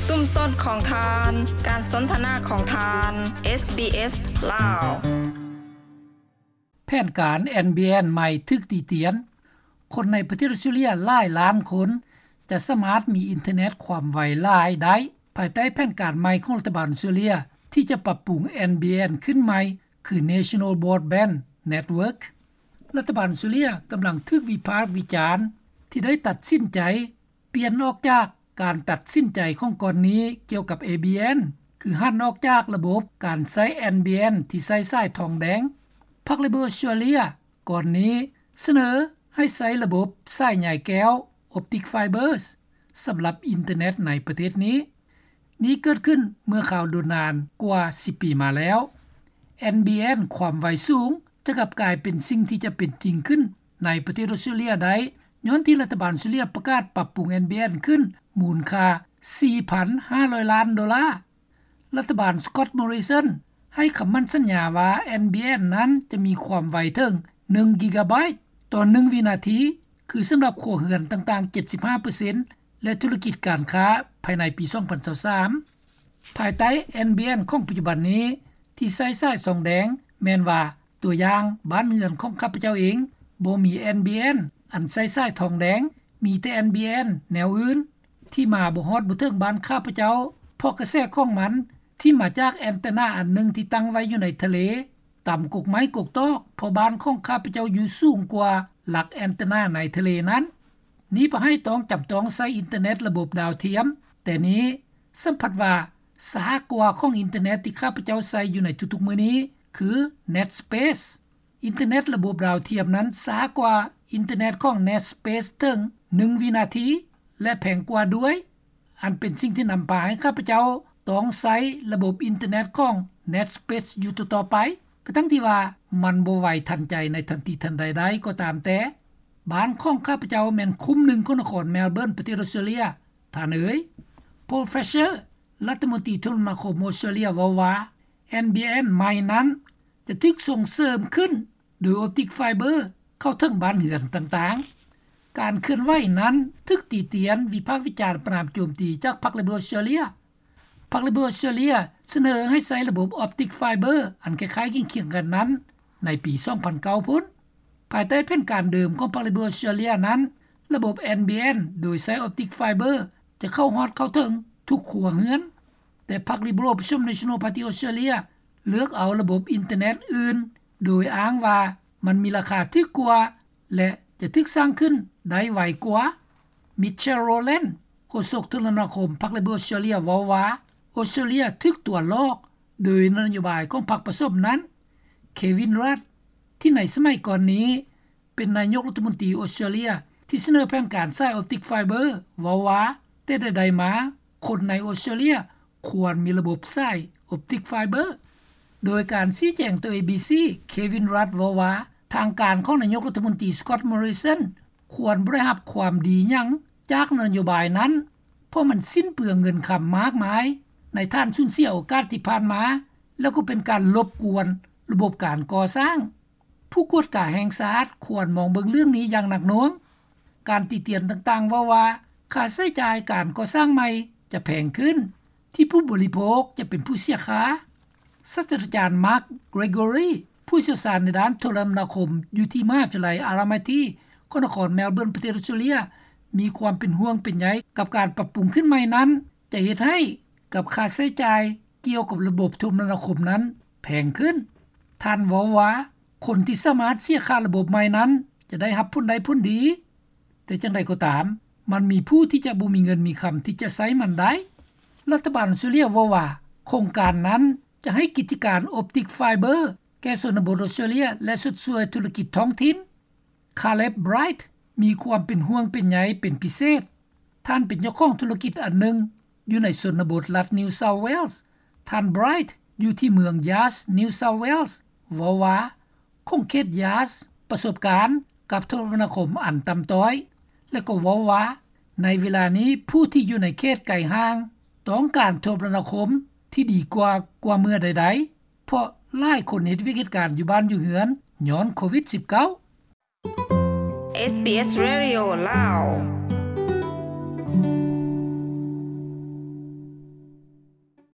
ຊຸມຊົນຂອງທ່ານ, ການສົນທະນາຂອງທ່ານ, ເອສບີເອສ ລາວ. ແຜນການ NBN ໃໝ່ຖືກຕິຕຽນ. ຄົນໃນປະເທດອອສເຕຣເລັຽຫຼາຍລ້ານຄົນ ຈະສາມາດມີອິນເຕີເນັດຄວາມໄວຫຼາຍໄດ້ ພາຍໃຕ້ແຜນການໃໝ່ຂອງລັດຖະບານອອສເຕຣເລັຽ ທີ່ຈະປັບປຸງ NBN ຂຶ້ນໃໝ່ ຄື National Broadband Network. ລັດຖະບານອອສເຕຣເລັຽກຳລັງຖືກວິພາກວິຈານ ທີ່ໄດ້ຕັດສິນໃຈ ປ່ຽນອອກຈາກການຕັດສິນໃຈຂອງກ່ອນນີ້ກ່ຽວກັບ ABN ຄືຫັນອອກຈາກລະບົບການໃຊ້ NBN ທີ່ໃຊ້ສາຍທອງແດງ. ພັກ Labor ອອສເຕຣເລັຽກ່ອນນີ້ສະເໜີໃຫ້ໃຊ້ລະບົບສາຍໃຍແກ້ວ Optic Fibers ສຳລັບອິນເຕີເນັດໃນປະເທດນີ້. ນີ້ເກີດຂຶ້ນເມື່ອຄາວດົນນານກວ່າສິບປີມາແລ້ວ. NBN ຄວາມໄວສູງ ຈະກັບກາຍເປັນສິ່ງທີ່ຈະເປັນຈິງຂຶ້ນໃນປະເທດອອສເຕຣເລັຽໄດ້ ຍ້ອນທີ່ລັດຖະບານອອສເຕຣເລັຽປະກາດປັບປຸງ NBN ຂຶ້ນ ມູນຄ່າສີ່ພັນຫ້າຮ້ອຍລ້ານໂດລາ. ລັດຖະບານ Scott Morrison ໃຫ້ຄຳໝັ້ນສັນຍາວ່າ NBN ນັ້ນຈະມີຄວາມໄວເຖິງໜຶ່ງກິກາໄບຕຕໍ່ໜຶ່ງວິນາທີ ຄືສຳລັບຄົວເຮືອນຕ່າງໆ ເຈັດສິບຫ້າເປີເຊັນ ແລະ ທຸລະກິດການຄ້າພາຍໃນປີສອງພັນຊາວສາມ. ພາຍໃຕ້ NBN ຂອງປັດຈຸບັນນີ້ ທີ່ໃຊ້ສາຍທອງແດງ ແມ່ນວ່າ ຕົວຢ່າງ ບ້ານເຮືອນຂອງຂ້າພະເຈົ້າເອງ ບໍ່ມີ NBN ອັນໃຊ້ສາຍທອງແດງ, ມີແຕ່ NBN ແນວອື່ນ ທີ່ມາບໍ່ຮອດບໍ່ເຖິງບ້ານຂ້າພະເຈົ້າ ເພາະກະແສຂອງມັນທີ່ມາຈາກແອນເຕີນາອັນໜຶ່ງທີ່ຕັ້ງໄວ້ຢູ່ໃນທະເລ ຕາມກົກໄມ້ກົກຕອກ ເພາະບ້ານຂອງຂ້າພະເຈົ້າຢູ່ສູງກວ່າຫຼັກແອນເຕີນາໃນທະເລນັ້ນ. ນີ້ພາໃຫ້ຕ້ອງຈຳຕ້ອງໃຊ້ອິນເຕີເນັດລະບົບດາວທຽມ, ແຕ່ນີ້ສຳຜັດວ່າຊ້າກວ່າຂອງອິນເຕີເນັດທີ່ຂ້າພະເຈົ້າໃຊ້ຢູ່ໃນທຸກໆມື້ນີ້ ຄື NetSpace. ອິນເຕີເນັດລະບົບດາວທຽມນັ້ນຊ້າກວ່າອິນເຕີເນັດຂອງ NetSpace ເຖິງໜຶ່ງວິນາທີ ແລະ ແພງກວ່າດ້ວຍ, ອັນເປັນສິ່ງທີ່ນຳພາໃຫ້ຂ້າພະເຈົ້າຕ້ອງໃຊ້ລະບົບອິນເຕີເນັດຂອງ NetSpace ຢູ່ຕໍ່ໆໄປ. ກະທັ່ງທີ່ວ່າມັນບໍ່ໄວທັນໃຈໃນທັນທີທັນໃດໄດ້ກໍຕາມແຕ່, ບ້ານຂອງຂ້າພະເຈົ້າແມ່ນຄຸ້ມໜຶ່ງຂອງນະຄອນ Melbourne ປະເທດອອສເຕຣເລັຽ. ທ່ານເອີຍ, Paul Fraser ລັດຖະມົນຕີໂທລະນາຄົມອອສເຕຣເລັຽເວົ້າວ່າ NBN ໃໝ່ນັ້ນຈະຖືກສົ່ງເສີມຂຶ້ນໂດຍ Optic Fiber ເຂົ້າເຖິງບ້ານເຮືອນຕ່າງໆ. ການເຄື່ອນໄຫວນັ້ນຖືກຕິຕຽນ, ວິພາກວິຈານ, ປະນາມໂຈມຕີຈາກພັກ Labor ອອສເຕຣເລັຽ. ພັກ Labor ອອສເຕຣເລັຽສະເໜີໃຫ້ໃຊ້ລະບົບ Optic Fiber ອັນຄ້າຍໆຄຽງໆກັນນັ້ນໃນປີສອງພັນເກົ້າພຸ້ນ. ພາຍໃຕ້ແຜນການເດີມຂອງພັກ Labor ອອສເຕຣເລັຽນັ້ນ, ລະບົບ NBN ໂດຍໃຊ້ Optic Fiber ຈະເຂົ້າຮອດເຂົ້າເຖິງທຸກຄົວເຮືອນ, ແຕ່ພັກ Liberal ປະຊຸມ National Party Australia ເລືອກເອົາລະບົບອິນເຕີເນັດອື່ນ ໂດຍອ້າງວ່າມັນມີລາຄາຖືກກວ່າ ແລະ ຈະຖືກສ້າງຂຶ້ນໄດ້ໄວກວ່າ. Michelle Rowland ໂຄສົກໂທລະນາຄົມພັກ Labor ອອສເຕຣເລັຽເວົ້າວ່າ ອອສເຕຣເລັຽຖືກຕົວະຫຼອກໂດຍນະໂຍບາຍຂອງພັກປະສົມນັ້ນ. Kevin Rudd ທີ່ໃນສະໄໝກ່ອນນີ້ ເປັນນາຍົກລັດຖະມົນຕີອອສເຕຣເລັຽທີ່ສະເໜີແຜນການສາຍ Optic Fiber ເວົ້າວ່າ ແຕ່ໃດໆມາ ຄົນໃນອອສເຕຣເລັຽຄວນມີລະບົບສາຍ Optic Fiber. ໂດຍການຊີ້ແຈງຕໍ່ ເອບີຊີ Kevin Rudd ເວົ້າວ່າ ທາງການຂອງນາຍົກລັດຖະມົນຕີ Scott Morrison ຄວນບໍ່ໄດ້ຮັບຄວາມດີຫຍັງຈາກນະໂຍບາຍນັ້ນ ເພາະມັນສິ້ນເປືອງເງິນຄຳມາກມາຍໃນທ່ານສູນເສຍໂອກາດທີ່ຜ່ານມາ ແລ້ວກໍເປັນການລົບກວນລະບົບການກໍ່ສ້າງ. ຜູ້ກວດກາແຫ່ງຊາດຄວນມອງເບິ່ງເລື່ອງນີ້ຢ່າງໜັກໜ່ວງ. ການຕິຕຽນຕ່າງໆເວົ້າວ່າ ຄ່າໃຊ້ຈ່າຍການກໍ່ສ້າງໃໝ່ຈະແພງຂຶ້ນ ທີ່ຜູ້ບໍລິໂພກຈະເປັນຜູ້ເສຍຄ່າ. ສາດສະດາຈານ Mark Gregory ຜູ້ຊ່ຽວຊານໃນດ້ານໂທລະນາຄົມຢູ່ທີ່ມະຫາວິທະຍາໄລ RMIT ຂອງນະຄອນ Melbourne ປະເທດອອສເຕຣເລັຽ ມີຄວາມເປັນຫ່ວງເປັນໃຍກັບການປັບປຸງຂຶ້ນໃໝ່ນັ້ນ ຈະເຮັດໃຫ້ກັບຄ່າໃຊ້ຈ່າຍກ່ຽວກັບລະບົບໂທລະນາຄົມນັ້ນແພງຂຶ້ນ. ທ່ານເວົ້າວ່າ ຄົນທີ່ສາມາດເສຍຄ່າລະບົບໃໝ່ນັ້ນ ຈະໄດ້ຮັບຜົນໄດ້ຜົນດີ, ແຕ່ຈັ່ງໃດກໍຕາມ ມັນມີຜູ້ທີ່ຈະບໍ່ມີເງິນມີຄຳທີ່ຈະໃຊ້ມັນໄດ້. ລັດຖະບານອອສເຕຣເລັຽເວົ້າວ່າ ໂຄງການນັ້ນຈະໃຫ້ກິດຈະການ Optic Fiber ແກ່ຊົນນະບົດອອສເຕຣເລັຽ ແລະ ຊົດຊ່ວຍທຸລະກິດທ້ອງຖິ່ນ. Caleb Bright ມີຄວາມເປັນຫ່ວງເປັນໃຍເປັນພິເສດ. ທ່ານເປັນເຈົ້າຂອງທຸລະກິດອັນໜຶ່ງຢູ່ໃນຊົນນະບົດລັດ New South Wales. ທ່ານ Bright ຢູ່ທີ່ເມືອງ Yass New South Wales ເວົ້າວ່າ ຂົງເຂດ Yass ປະສົບການກັບໂທລະນາຄົມອັນຕ່ຳຕ້ອຍ ແລະ ກໍເວົ້າວ່າ ໃນເວລານີ້ຜູ້ທີ່ຢູ່ໃນເຂດໄກຫ່າງຕ້ອງການໂທລະນາຄົມທີ່ດີກວ່າ ກວ່າເມື່ອໃດໆ ເພາະຫຼາຍຄົນເຮັດວຽກເຮັດການຢູ່ບ້ານຢູ່ເຮືອນຍ້ອນໂຄວິດສິບເກົ້າ. ເອສບີເອສ Radio ລາວ.